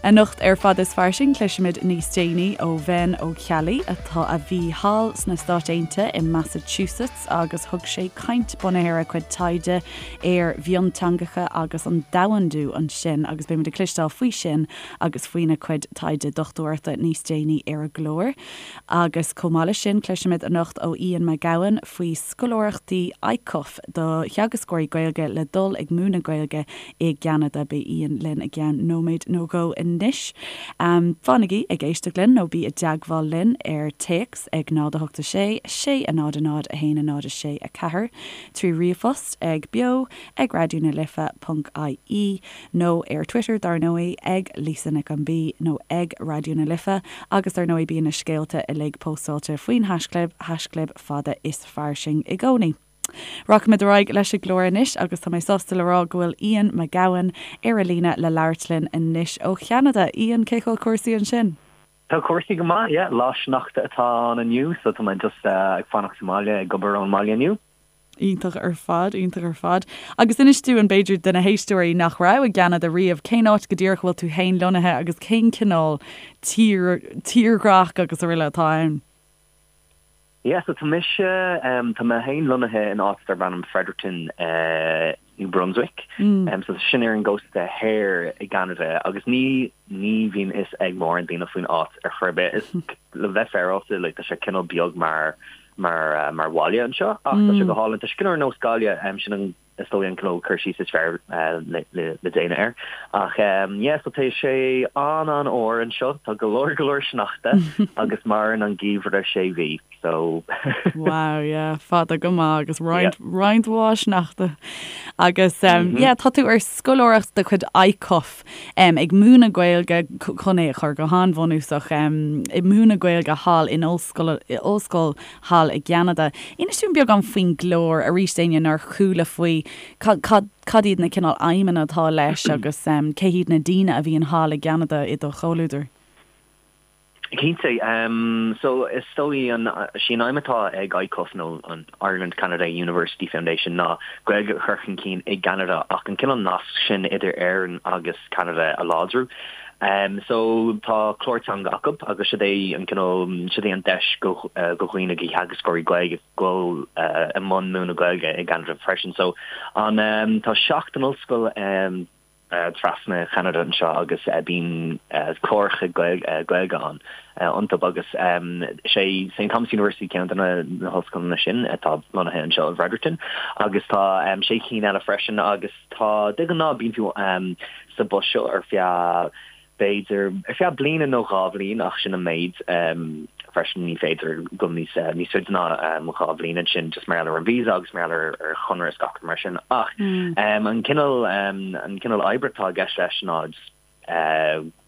Anocht ar Fada is Fairsing cloisfimid níos déanaí ó Bhen Ó Ceallaigh atá a bhí thall sna Stáit Aontaithe i Massachusetts agus thug sé caint bunaithe ar a chuid taighde ar mhionteangacha agus an domhandú ansin agus beimid ag cloisteáil faoi sin agus faoina chuid taighde dochtúireachta níos déanaí ar an gclár. Agus chomh maith leis sin cloisfimid anocht ó Ian Mac Gabhann faoi scoláireachtaí ICUF do theagascóirí Gaeilge le dul ag múineadh Gaeilge i gCeanada. Beidh Ian linn i gceann nóiméad nó dhó anois. Fanaigí ag éisteacht linn nó bí i dteagmháil linn ar téacs ag 0 8 6 6 0 0 1 0 6 4, trí ríomhphost ag beo ag raidió na life ponc ie nó ar Twitter dar ndóigh ag Lisa Nic an B nó ag Raidió na Life agus dar ndóigh bíonn na scéalta uilig póstáilte faoin haischlib, haischlib fada is fairsing i gcónaí. Rachaimid ar aghaidh leis an gclár anois agus tá mé sásta le rá go bhfuil Ian Mac Gabhann ar an líne le labhairt linn anois ó Cheanada. Ian, cén chaoi a bhfuil cúrsaí ansin? Tá cúrsaí go maith, yeah. Lá sneachta atá ann inniu so tá mé just ag fanacht sa mbaile, ag obair ón mbaile inniu. Iontach ar fad, iontach ar fad. Agus inis dúinn, b'fhéidir, do na héisteoirí nach raibh i gCeanada riamh, cén áit go díreach a bhfuil tú féin lonnaithe agus cén cineál tír, tírdhreach agus araile atá ann? Yeah, so tá mise, tá mé féin lonnaithe in áit darb ainm Fredericton, New Brunswick. So tá sin ar an gcósta thoir i gCeanada agus ní, ní bhíonn fhios ag mórán daoine faoin áit ar chor ar bith. Is, le bheith féaráilte, like, tá sé cineál beag mar, mar, mar bhaile anseo ach tá sé go hálainn. Tá sé cineál ar nós Gaillimh, sin an, is dóigh an cineál cur síos is fearr le, le, le déanamh air. Ach yeah, so tá sé an-an-fhuar anseo, tá go leor, go leor sneachta agus maireann an geimhreadh sé mhí, so. Wow, yeah, fada go maith agus roinnt, roinnt mhaith sneachta. Agus yeah, tá tú ar scoláireacht de chuid ICUF ag múineadh Gaeilge, chun é a chur go han-bhunúsach, ag múineadh Gaeilge thall in ollscoil, ollscoil thall i gCeanada. Inis dúinn beagán faoin gclár, arís d'éinne nár chuala faoi, cad, cad, cad iad na cineál aidhmeanna atá leis agus cé hiad na daoine a bhíonn thall i gCeanada i do chomhluadar? Cinnte. So is dóigh an, sí an aidhm atá ag ICUF nó an Ireland Canada University Foundation ná Gaeilge a chur chun cinn i gCeanada ach an cineál nasc sin idir Éirinn agus Ceanada a láidriú. So tá clár teanga acu agus siod é an cineál, siod é an deis go do dhaoine, do theagascóirí Gaeilge dul i mbun múineadh Gaeilge i gCeanada freisin. So an, tá 7 n-ollscoil trasna Cheanada anseo agus bíonn cláracha Gaeilge ann iontu agus is é St Thomas University ceann de na hollscoileanna sin atá lonnaithe anseo i bhFredericton agus tá sé cinn eile freisin agus Tá, de ghnáth bíonn tú sa bpost seo ar feadh, b'fhéidir, ar feadh bliana nó dhá bhliain ach sin an méid freisin, ní féidir dul níos níos faide ná dhá bhliain ansin just mar gheall ar an visa agus mar gheall ar ar chonradh is gach rud mar sin ach an cineál an cineál oibre atá i gceist leis ná just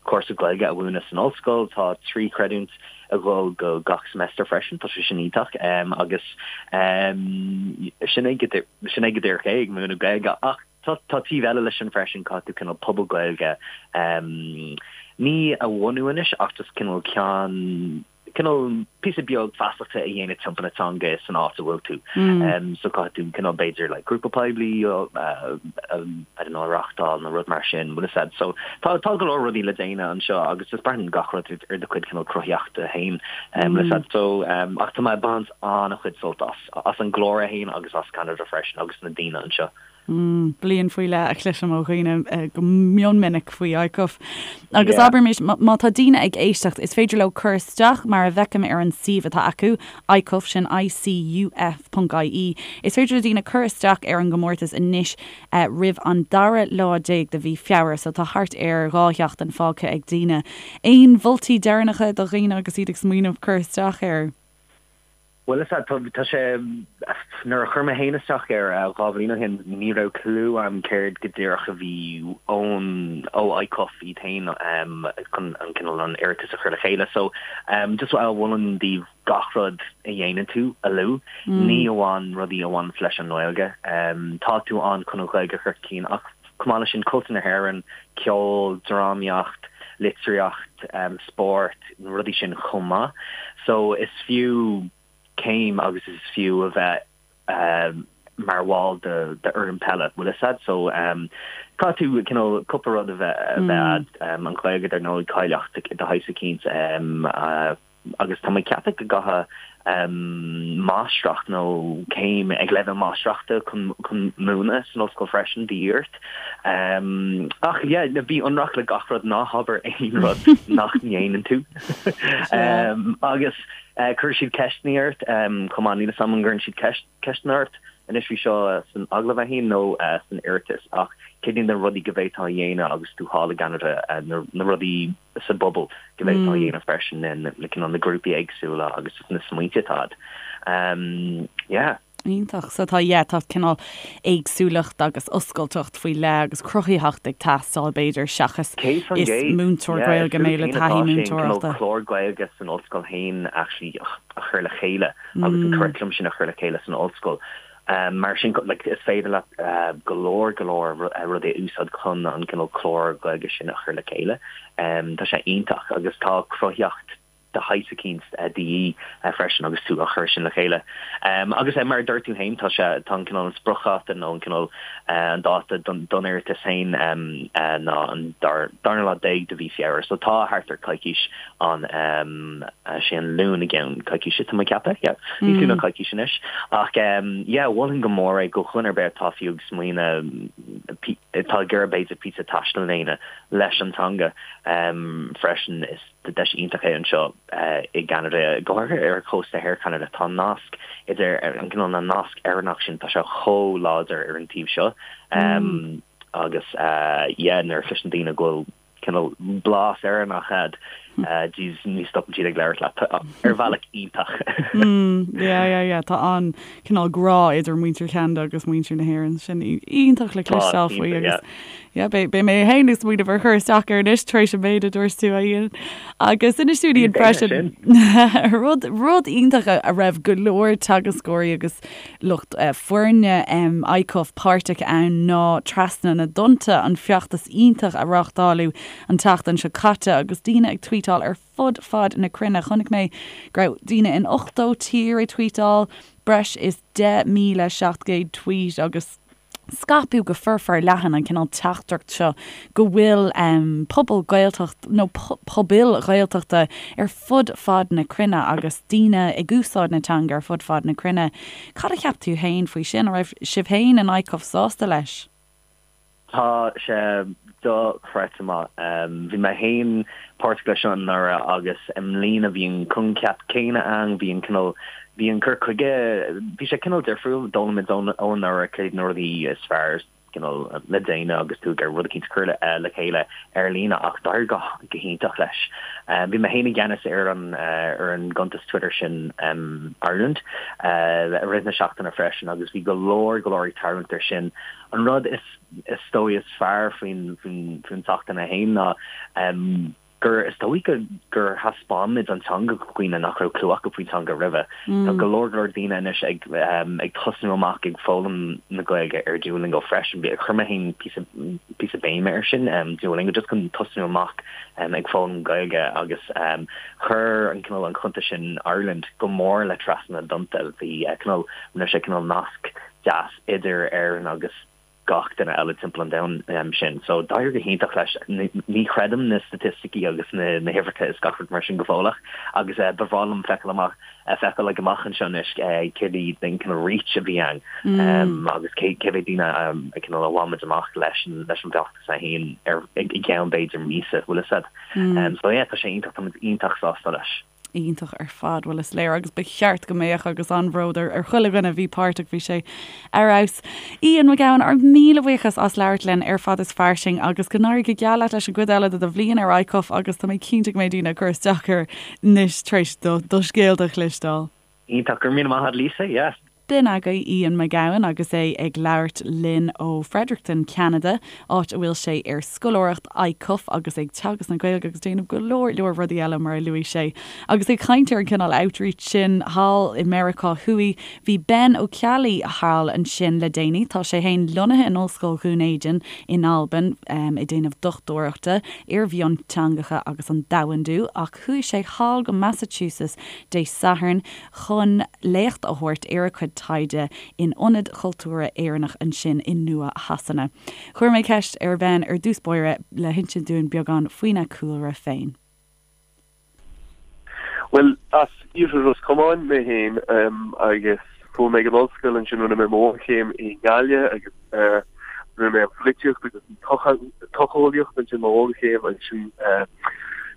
cúrsa Gaeilge a mhúineadh san ollscoil. Tá 3 chreidiúint ag dul go gach semester freisin, tá sé sin iontach agus sin é go sin é go díreach é ag múineadh Gaeilge ach tá tá taobh eile leis sin freisin, caithfidh tú cineál pobal Gaeilge ní a bhunú anois ach just cineál ceann cineál píosa beag feasachta a dhéanamh timpeall na teanga san áit a bhfuil tú. So caithfidh tú cineál b'fhéidir like grúpa poiblí I don't know a reachtáil nó rud mar sin, bhfuil fhios a'd. So tá tá go leor rudaí le déanamh anseo agus just braitheann gach rud ar do chuid cineál cruthaíochta féin bhfuil fhios a'd. So ach tá mé ag baint an-chuid sult as, as an gclár é féin agus as Ceanada freisin agus na daoine anseo. Bliain faoi leith a chloisim ó dhaoine go mion minic faoi ICUF. Agus abraimis, má tá daoine ag éisteacht, is féidir leo cur isteach mar a bhfeicim ar an suíomh atá acu, ICUF, sin ICUF ponc IE, is féidir le daoine cur isteach ar an gcomórtas anois roimh an dara lá déag de mhí Feabhra, so tá thart ar dhá sheachtain fágtha ag daoine. Aon mholtaí deireanacha do dhaoine agus iad ag smaoineamh cur isteach air? Bhuel, is ea, tá sé, nuair a chuir mé féin isteach air dhá bhliain ó shin, ní raibh clue a'm céard go díreach a bhí ón, ó ICUF iad féin chun an cineál an iarratas a chur le chéile. So, just mholfainn daoibh gach rud a dhéanann tú a lua, ní amháin rudaí a bhaineanns leis an nGaeilge. Tá tú ann chun an Ghaeilge a chur chun cinn ach chomh maith leis sin, cultúr na hÉireann, ceol, drámaíocht, litríocht, spórt, na rudaí sin chomh maith. So is fiú céim agus is fiú a bheith. mar bhall d'fhoireann peile, bhfuil fhios a'd. So caithfidh tú cineál cúpla rud a bheith a'd, an Ghaeilge dar ndóigh, cáilíocht de shaghas eicínt agus tá mé ag ceapadh go gcaithfidh máistreacht nó céim ag leibhéal máistreachta chun chun múineadh san ollscoil freisin de dhíth ort. Ach yeah, bí ionraic le gach rud, ná habair aon rud nach ndéanann tú. Agus cuirfidh siad ceisteanna ort chomh maith, níl 'fhios a'm an gcuireann siad ceisteanna ort anois faoi seo san agallamh é féin nó san iarratas ach céard iad na rudaí go bhféadfá a dhéanamh agus tú thall i gCeanada, na rudaí sa bpobal go bhféadfá a dhéanamh freisin, na cineál na grúpaí éagsúla agus na smaointe atá a'd. Yeah. Iontach. So tá, yeah, tá cineál éagsúlacht agus oscailteacht faoi leith agus cruthaitheacht ag teastáil b'fhéidir seachas is múinteoir Gaeilge mé le taithí múinteoireachta. Cineál clár Gaeilge san ollscoil féin actually a chur le chéile agus an curriculum sin a chur le chéile san ollscoil. Mar sin like is féidir leat go leor go leor rudaí a úsáid chun an cineál clár Gaeilge sin a chur le chéile. Tá sé iontach agus tá cruthaitheacht de shaghas eicínt de dhíth freisin agus tú á chur sin le chéile. Agus mar a dúirt tú féin, tá sé, tá an cineál an spriocdháta nó an cineál an dáta don iarratas féin ná an darna lá déag de mhí Feabhra. So tá thart ar coicís ann, sé an Luan i gceann coicíse tá mé ag ceapadh, yeah, níos lú ná coicís anois. Ach yeah, mholfainn go mór é do dhuine ar bith atá fiú ag smaoineamh, atá ag iarraidh b'fhéidir píosa taistil a dhéanamh leis an teanga freisin. Is. Deis iontach é anseo i gCeanada, go háirithe ar chósta thoir Cheanada. Tá an nasc idir an cineál na nasc Éireannach sin, tá sé chomh láidir ar an taobh seo. Agus yeah, nuair a chloiseann daoine go bhfuil cineál blas Éireannach a'd, jeez, ní stopann siad ag labhairt leat ar bhealach iontach. Yeah, yeah, yeah, tá an cineál grá idir muintir Cheanada agus muintir na hÉireann. Sin iontach le cloisteáil faoi agus Yeah, beidh mé féin ag smaoineamh ar chur isteach air anois tar éis an méid a dúirt tú, a Ian. Agus inis dúinn Ian freisin rud rud iontach a raibh go leor teagascóirí agus lucht foirne ICUF páirteach ann ná Trasna na dTonnta, an feachtas iontach a reáchtáladh an tseachtain seo caite agus daoine ag tweetáil ar fud fad na cruinne. Chonaic mé go raibh daoine in 80 tír ag tweetáil, breis is 10,700 tweet agus scaipeadh go forleathan an cineál teachtaireacht seo go bhfuil pobal Gaeltacht nó pobail Ghaeltachta ar fud fad na cruinne agus daoine ag úsáid na teanga ar fud fad na cruinne. Cad a cheap tú féin faoi sin? An raibh sibh féin in ICUF sásta leis? Tá sé dochreidte maith. Bhí mé féin páirteach leis seo anuraidh agus i mbliana bhí an coincheap céanna ann, bhí an cineál, bhí an cur chuige, bhí sé cineál difriúil, d'fhoghlaim muid ó anuraidh céard na rudaí is fearr cineál le déanamh agus tú ag iarraidh rud eicínt a chur le chéile ar líne ach d'éirigh go hiontach leis. Bhí mé féin i gceannas ar an ar an gcuntas Twitter sin Ireland i rith na seachtaine freisin agus bhí go leor go leor ag tarraingt air sin. An rud is is dóigh is fearr faoin faoin faoin tseachtain é féin ná gur is dóigh go gur thaispeáin muid an teanga do dhaoine nach raibh clue acu faoin teanga roimhe. Tá go leor go leor daoine anois ag ag tosnú amach ag foghlaim na Gaeilge ar Duolingo freisin. Chuir mé féin píosa píosa béime ar sin, Duolingo, just chun tosnú amach ag foghlaim Gaeilge agus chuir an cineál an cuntas sin Ireland go mór le Trasna na dTonnta. Bhí cineál rinne sé cineál nasc deas idir Éirinn agus gach duine eile timpeall an domhain sin. So d'éirigh go hiontach leis. Ní chreidim na staitisticí agus na na huimhreacha is gach rud mar sin go fóilleach agus ba bhreá liom feiceáil amach feiceáil ag amach anseo anois céard iad an cineál reach a bhí ann agus cé cé mhéad daoine a cineál a bhain muid amach leis an leis an bhfeachtas é féin ar i gceann b'fhéidir míosa, bhfuil fhios a'd. So yeah, tá sé iontach, tá muid iontach sásta leis. Iontach ar fad, bhuel is léir agus ba cheart go mbeadh agus an-bhród ar ar chuile dhuine a bhí páirteach, bhí sé ar fheabhas. Ian Mac Gabhann, ár míle buíochas as labhairt linn ar Fad is Fairsing agus go n-éirí go geal leat leis an gcuid eile de do bhliain ar ICUF agus tá mé cinnte go mbeidh daoine ag cur isteach air anois tar éis do do scéalta a chloisteáil. Iontach, go raibh míle maith agat Lisa, yeah. B'in agaibh Ian McGowan agus é ag labhairt linn ó Fredericton, Ceanada, áit a bhfuil sé ar scoláireacht ICUF agus ag teagasc na Gaeilge agus déanamh go leor leor rudaí eile mar a luaigh sé. Agus ag caint ar an cineál outreach sin thall i Meiriceá Thuaidh, bhí Ben Ó Ceallaigh thall ansin le déanaí. Tá sé féin lonnaithe in Ollscoil Dhún Éideann in Albain ag déanamh dochtúireachta ar mhionteangacha agus an domhandú ach chuaigh sé thall go Massachusetts Dé Sathairn chun léacht a thabhairt ar a cuid. taighde in Ionad Chultúrtha Éireannach ansin i Nua Shasana. Chuir mé ceist ar Ben ar dtús báire le hinsint dúinn beagán faoina chúlra féin. Bhuel, as Iarthar Ros Comáin mé féin agus chuaigh mé ag an ollscoil ansin, rinne mé mo bhunchéim i nGaillimh agus rinne mé an pholaitíocht agus an tsocheolaíocht ansin mo bhunchéim ansin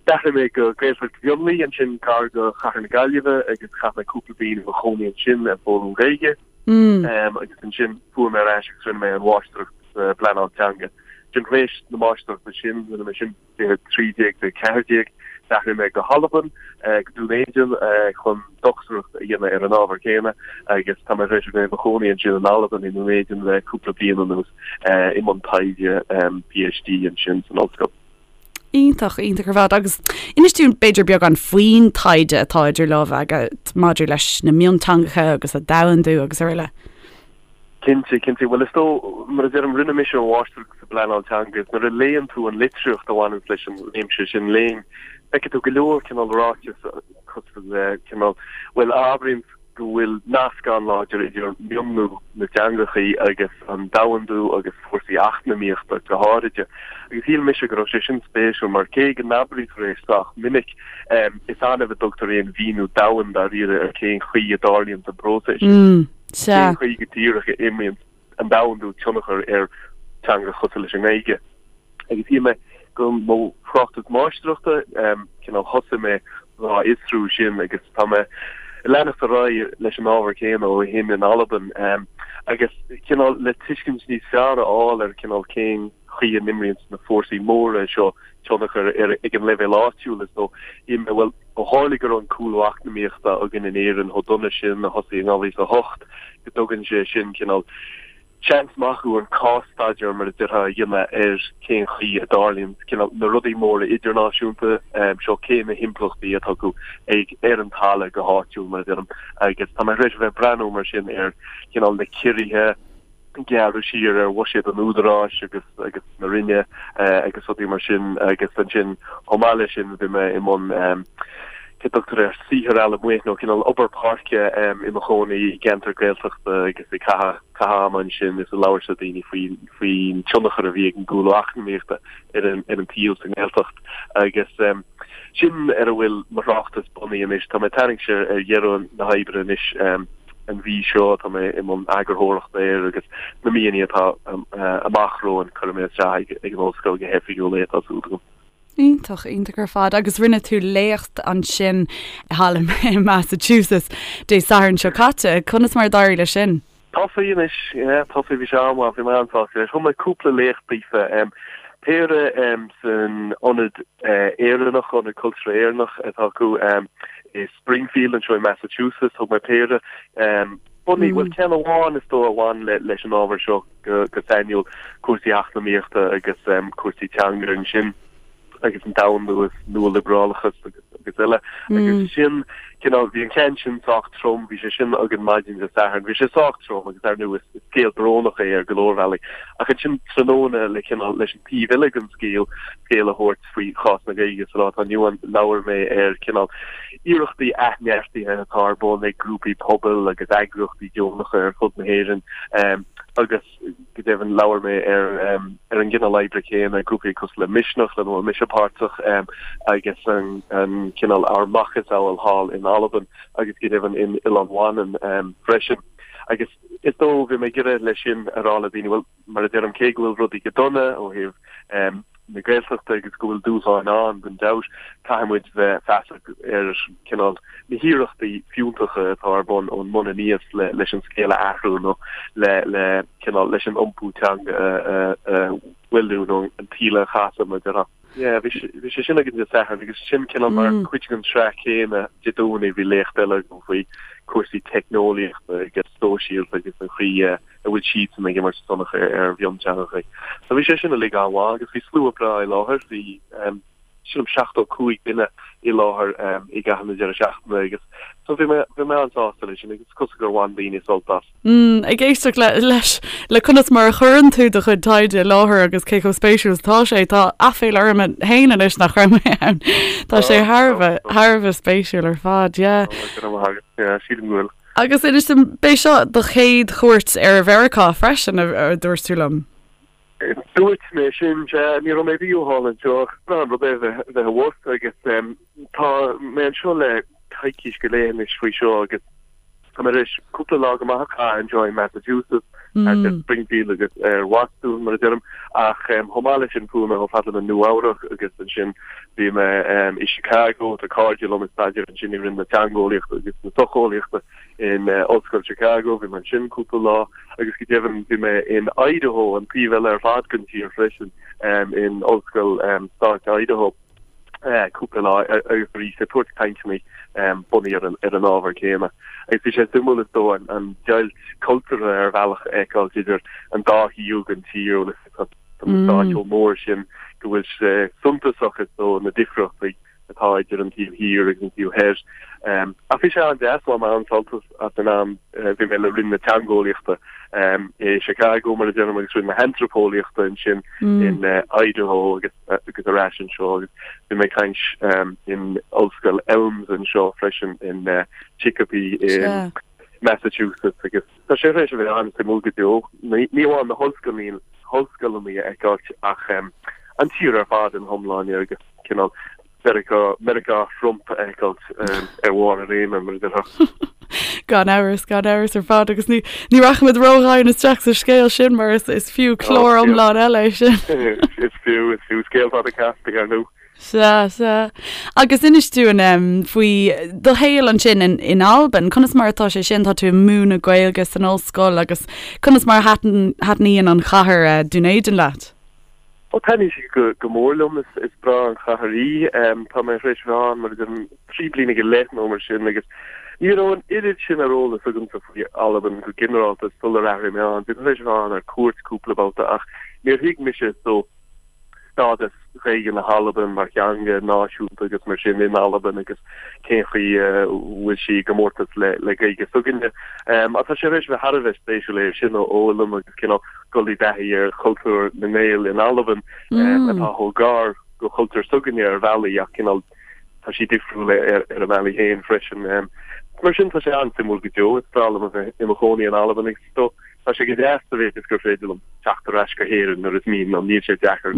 d'athraigh mé go Gaeltacht Mhionlaigh ansin gar do chathair na Gaillimhe agus chaith mé cúpla bliain i mo chónaí ansin ag foghlaim Gaeilge agus ansin chuaigh mé ar ais agus rinne mé an mháistreacht sa bpleanáil teanga. Ansin tar éis na máistreachta sin, rinne mé sin 2013 go 14, d'athraigh mé go hAlbain, go Dún Éideann, chun dochtúireacht a dhéanamh ar an ábhar céanna agus tá mé tar éis a bheith i mo chónaí ansin in Albain, i nDún Éideann le cúpla bliain anuas, i mbun taighde PhD ansin san ollscoil. Iontach, iontach ar fad. Agus inis dúinn b'fhéidir beagán faoin taighde atá idir lámha agat maidir leis na mionteangacha agus a domhandú agus araile. Cinnte, cinnte. Bhuel, is dóigh, mar a deirim, rinne mise an mháistreacht sa bpleanáil teanga agus nuair a léann tú an litríocht a bhaineanns leis an réimse sin léinn, feicfidh tú go leor cineál ráiteas cosúil le cineál, bhuel, a abraíonns go bhfuil nasc an-láidir idir mionlú na dteangachaí agus an domhandú agus fórsaí eacnamaíochta go háiride. Agus shíl mise go raibh sé sin spéisiúil mar cé go n-abraítear é sách minic, is annamh a dtugtar aon mhíniú domhain dáiríre ar cén chaoi a dtarlaíonns an próiseas sin. Sea. Cén chaoi go díreach a imríonn an domhandú tionchar ar teanga cosúil leis an nGaeilge? Agus shíl mé go mo thráchtas máistreachta, cineál thosaigh mé dhá fhiosrú sin agus tá mé ag leanacht ar aghaidh leis an ábhar céanna ó shin in Albain agus cineál le tuiscint níos fearr a fháil ar cineál cén chaoi a n-imríonn na fórsaí móra seo tionchar ar ag an leibhéal áitiúil is dóigh. Shíl mé, bhuel, ó tharla go raibh an cúlú eacnamaíochta againn in Éirinn chomh dona sin a thosaigh in 2008, go dtugann sé sin cineál seans maith dúinn cás-staidéar, mar a déarfá, a dhéanamh ar cén chaoi a dtarlaíonn cineál na rudaí móra idirnáisiúnta seo, cé na himpleachtaí atá acu ag ar an talamh go háitiúil, mar a deirim. Agus tá mé tar éis a bheith ag breathnú mar sin ar chineál na ciorruithe, gearradh siar ar bhuiséad an Údaráis agus agus na Roinne agus rudaí mar sin agus ansin chomh maith leis sin bhí mé i mbun cé tugtar air saothar allamuigh nó cineál obair páirce i mo chónaí i gceantar Gaeltachta agus ag caitheamh caitheamh ama ansin is ag labhairt le daoine faoi faoin tionchar a bhí ag an gcúlú eacnamaíochta ar an ar an tsaol sa nGaeltacht agus sin ar a bhfuil mo thráchtas bunaithe anois. Tá mé ag tarraingt ar dheireadh na hoibre anois. An mhí seo tá mé i mbun eagarthóireachta air agus na míonna atá amach romhainn cuirfidh mé isteach ag an ollscoil go hoifigiúil é, tá súil agam. Iontach, iontach ar fad. Agus rinne tú léacht ansin thall i Massachusetts Dé Sathairn seo caite. Conas mar a d'éirigh leis sin? Tosaithe anois, yeah, tosaithe, bhí sé an-mhaith, bhí mé an-sásta leis. Thug mé cúpla léacht daofa, péire san Ionad Éireannach, Ionad Cultúrtha Éireannach atá acu i Springfield anseo i Massachusetts, thug mé péire bunaithe, bhuel ceann amháin is dóigh a bhain leis an ábhar seo go sainiúil, cúrsaí eacnamaíochta agus cúrsaí teanga ansin agus an domhandú is nualiobrálachas agus agus eile. Agus sin cineál, bhí an ceann sin sách trom, bhí sé sin againn maidin Dé Sathairn, bhí sé sách trom agus ar ndóigh is scéal brónach é ar go leor bealaí. Ach ansin tráthnóna le cineál leis an taobh eile den scéal, scéal a thabhairt faoi chás na Gaeilge sa lá atá inniu ann, labhair mé ar cineál iarrachtaí athneartaithe atá ar bun ag grúpaí pobail agus eagraíochtaí deonacha ar fud na hÉireann agus go deimhin labhair mé ar ar an gcineál oibre céanna, grúpaí cosúil le Misneach lena bhfuil mise páirteach agus an an cineál ár macasamhail thall in Albain agus go deimhin in Oileán Mhanann freisin. Agus is dóigh bhí mé ag iarraidh leis sin a rá le daoine, bhuel, Mar a deirim, cé go bhfuil rudaí go dona ó thaobh na Gaeltachta agus go bhfuil dúshláin ann, gan dabht, caithfidh muid bheith feasach ar cineál na hiarrachtaí fiúntacha atá ar bun ón mbun aníos leis an scéal a athrú nó le le cineál leis an iompú teanga a mhoilliú nó an taoille a chasadh, mar a déarfá. Yeah, bhí bhí sé sin againn Dé Sathairn agus sin cineál mar cuid den tsraith chéanna Dé Domhnaigh bhí léacht eile agam faoi cúrsaí teicneolaíochta agus sóisialta agus an chaoi a bhfuil siadsan ag imirt tionchar ar mhionteangacha. So bhí sé sin uilig an-mhaith agus bhí slua breá i láthair, bhí sílim 75 duine i láthair i gcaitheamh na deireadh seachtaine agus so bhí mé bhí mé an-sásta leis sin agus is cosúil gur bhain daoine sult as. Mm, ag éisteacht le, leis, le conas mar a chuireann tú do chuid taighde i láthair agus cé chomh spéisiúil is atá sé, tá aiféala orm féin anois nach raibh mé ann. Tá sé thar a bheith, thar a bheith spéisiúil ar fad, yeah. Go raibh maith agat, yeah, sílim go bhfuil. Agus inis dom, b'é seo do chéad chuairt ar Mheiriceá freisin, a dúirt tú liom? Dúirt mé sin, sea. Ní raibh mé riamh thall anseo ach is breá an rud é bheith abhus agus tá mé anseo le coicís go leith anois faoi seo agus tá mé tar éis cúpla lá go maith a chaitheamh anseo i Massachusetts, thart ar Springfield agus ar Bhostún mar a deirim, ach chomh maith leis sin chuaigh mé chomh fada le Nua Eabhrac agus ansin bhí mé i Chicago, tá cairde liom ag staidéar ansin i Roinn na Teangeolaíochta agus na Socheolaíochta in Ollscoil Chicago, bhí mé ansin cúpla lá agus go deimhin bhí mé in Idaho, an taobh eile ar fad den tír freisin, in Ollscoil Stáit Idaho cúpla lá agus arís ag tabhairt cainteanna bunaithe ar an ábhar céanna. Agus bhí sé suimiúil is dóigh an deighilt cultúrtha ar bhealach a fheiceáil idir an dá thaobh den tír, tá na stáit chomh mór sin go bhfuil sé suntasach is dóigh na difríochtaí atá idir an taobh thiar agus an taobh thoir. Ach bhí sé an-deas, bhain mé an-sult as an am, bhí mé le Roinn na Teangeolaíochta i Chicago, mar a deirim, agus Roinn na hAntraipeolaíochta ansin in Idaho agus agus ar ais anseo agus bhí mé ag caint in Ollscoil Elms anseo freisin in Chicopee i Massachusetts agus Tá sé tar éis a bheith an-suimiúil go deo, ní amháin na hollscoileanna a fheiceáilt ach an tír ar fad ina hiomláine agus cineál Meiriceá, Meiriceá Thrump a fheiceáilt ar bharr a réime, mar a déarfá. Gan amhras, gan amhras ar fad agus ní ní rachaimid ródhomhain isteach sa scéal sin mar is is fiú clár iomlán eile é sin. Is fiú, is fiú scéal fada casta, ar ndóigh. Sea, sea. Agus inis dúinn faoi do shaol ansin in, in Albain. Conas mar atá sé sin? Tá tú ag múineadh Gaeilge san ollscoil agus conas mar a thaitníonn an chathair eh, Dún Éideann leat? Ó taitníonn sí go, go mór liom. Is, is breá an chathair í. Tá mé tar éis bheith ann mar a deirim 3 bliana go leith nó mar sin agus ní raibh an oiread sin ar eolas agamsa faoi Albain go ginearálta sular athraigh mé ann. Bhí mé tar éis bheith ann ar cuairt cúpla babhta ach níor thuig mise so stádas Ghaeilge na hAlban mar theanga náisiúnta agus mar sin in Albain agus cén chaoi a bhfuil sí i gcomórtas le le Gaeilge s'againne. Ach tá sé tar éis bheith thar a bheith spéisiúil é sin a fhoghlaim agus cineál dul i dtaithí ar chultúr na nGael in Albain atá chomh gar go chultúr s'againne ar bhealaí ach cineál tá sí difriúil ar a mbealaí féin freisin. Mar sin tá sé an-suimiúil go deo. Is breá liom a bheith i mo chónaí in Albain agus is dóigh tá sé go deas sa mhéid is gur féidir liom teacht ar ais go hÉirinn nuair is mian liom. Níl sé deacair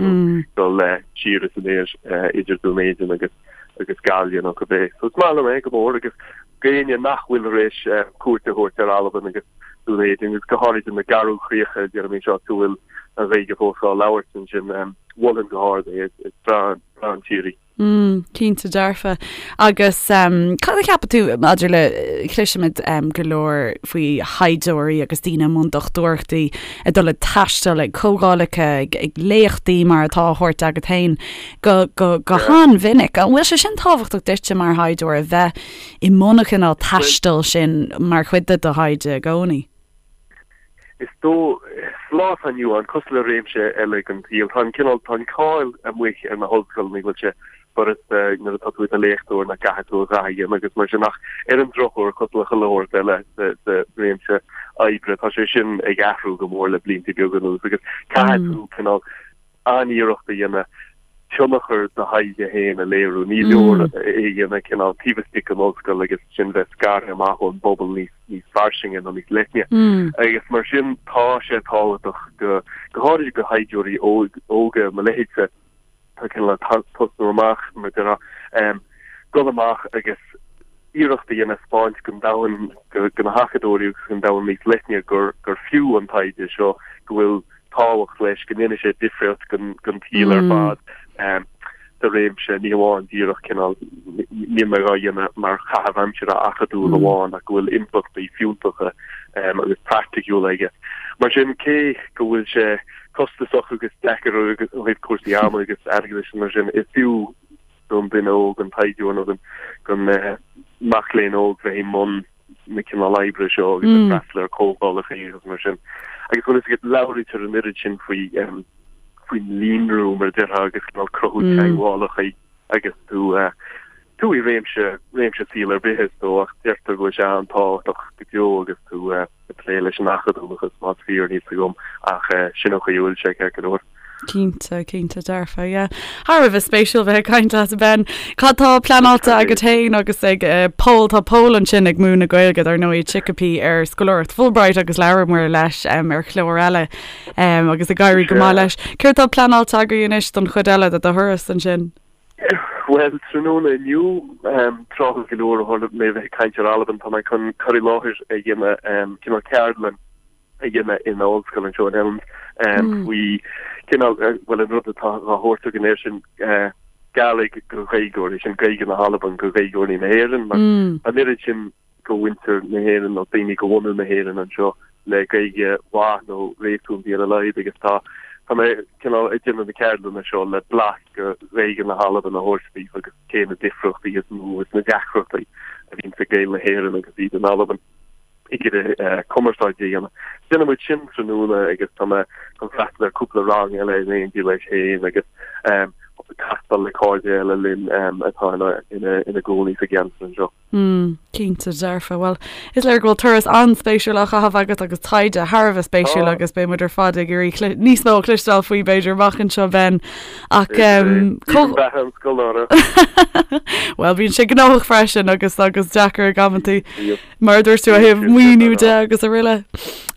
dul siar is aniar idir Dún Éideann agus agus Gaillimh nó cibé. So is maith liom é go mór agus d'éinne nach bhfuil tar éis cuairt a thabhairt ar Albain agus Dún Éideann agus go háirid na Garbhchríocha, déarfainn anseo, go bhfuil an Ghaeilge fós á labhairt ansin, mholfainn go hard é. Is breá an tír í. Mm, cinnte dearfa. Agus um, cad a cheapann tú maidir le cloisimid um, go leor faoi thaighdeoirí agus daoine i mbun dochtúireachtaí ag dul ag taisteal ag comhdhálacha ag, ag léachtaí mar atá á thabhairt agat féin go, go, go han-mhinic. An bhfuil sé sin tábhachtach duitse mar thaighdeoir a bheith i mbun an chineál taistil sin mar chuid de do thaighde i gcónaí? Is dóigh, sa lá atá inniu ann, cosúil le réimse eile den tsaol, tá an cineál, tá an cáil amuigh ar na hollscoileanna go bhfuil sé furasta nuair atá tú i do léachtóir nach gcaithfidh tú a dhath a dhéanamh agus mar sin ach ar an drochuair, cosúil le chuile shórt eile sa réimse oibre, tá sé sin ag athrú go mór le blianta beaga anuas agus caithfidh tú cineál an-iarracht a dhéanamh tionchar do thaighde féin a léiriú. Ní leor é a dhéanamh cineál taobh istigh den ollscoil agus ansin bheith scartha amach ón bpobal níos níos fairsinge nó níos leithne. Agus mar sin tá sé tábhachtach go go háirid do thaighdeoirí óga mo leithéidse atá cineál ag tosnú amach mar a déarfá, dul amach agus iarracht a dhéanamh 'spáint don domhan, do na hacadóirí agus don domhan níos leithne gur gur fiú an taighde seo, go bhfuil tábhacht leis, go ndéanfaidh sé difríocht don tsaol ar fad sa réimse, ní hamháin díreach cineál, níl mé dhá dhéanamh mar chaitheamh aimsire acadúil amháin ach go bhfuil impleachtaí fiúntacha agus praiticiúla aige. Mar sin, cé go bhfuil sé costasach agus deacair ó thaobh cúrsaí ama agus airgeadais mar sin, is fiú don duine óg, an taighdeoir nó don mac léinn óg bheith i mbun na cineál oibre seo agus ag freastal ar comhdhálacha agus mar sin. Agus bhfuil fhios agat, labhraítear an oiread sin faoi faoin líonrú mar a déarfá agus cineál cruthú teagmhálacha agus tú tú i réimse réimse saoil ar bith is dóigh ach deirtear go bhfuil sé an-tábhachtach go deo agus tú ag plé leis an acadúlachas más fíor níl fhios agam ach sin an chaoi a bhfuil sé ceart go leor. Cinnte, cinnte dearfa, yeah. Thar a bheith spéisiúil bheith ag caint leat, Ben. Cad tá pleanáilte agat féin agus ag Pól? Tá Pól ansin ag múineadh Gaeilge, dar ndóigh, i Chicopee ar scoláireacht Fulbright agus labhramar leis ar chlár eile agus ag éirí go maith leis. Céard tá pleanáilte agaibh anois don chuid eile de do thuras ansin? Bhuel, tráthnóna inniu, tráthúil go leor ó tharla mé a bheith ag caint ar Albain, tá mé chun cur i láthair a dhéanamh, cineál ceardlann a dhéanamh in ollscoil anseo in Elms faoi cineál, bhuel, an rud atá á thabhairt againn air sin, Gàidhlig go Gaeilgeoirí, sin Gaeilge na hAlban go Gaeilgeoirí na hÉireann, mar an oiread sin go mhuintir na hÉireann nó daoine go bhunadh na hÉireann anseo le Gaeilge mhaith nó réasúnta ar a laghad agus tá tá mé cineál ag déanamh na ceardlanna seo le blas go Ghaeilge na hAlban a thabhairt daofa agus cé na difríochtaí is mó is na deacrachtaí a bhíonn ag Gaeil na hÉireann agus iad in Albain. ag iarraidh cumarsáid a dhéanamh. Déanfaidh muid sin tráthnóna agus tá mé chun freastal ar cúpla rang eile in éindí leis féin agus castáil le cairde eile linn atá ina gcónaí sa gceantar anseo. Mm, cinnte dearfa. Bhuel, is léir go bhfuil turas an-spéisiúil á chaitheamh agat agus taighde thar a bheith spéisiúil agus beidh muid ar fad ag iarraidh níos mó a chloisteáil faoi b'fhéidir amach anseo Ben. Ach Beatha an scoláire. Bhuel, bíonn sé gnóthach freisin agus agus deacair ag amantaí. Mar a dúirt tú ó thaobh maoiniú de agus araile.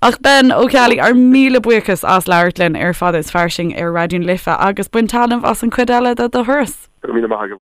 Ach Ben Ó Ceallaigh, ár míle buíochas as labhairt linn ar Fada is Fairsing ar Raidió na Life agus bain taitneamh as an chuid eile de do thuras. Go raibh míle maith agat.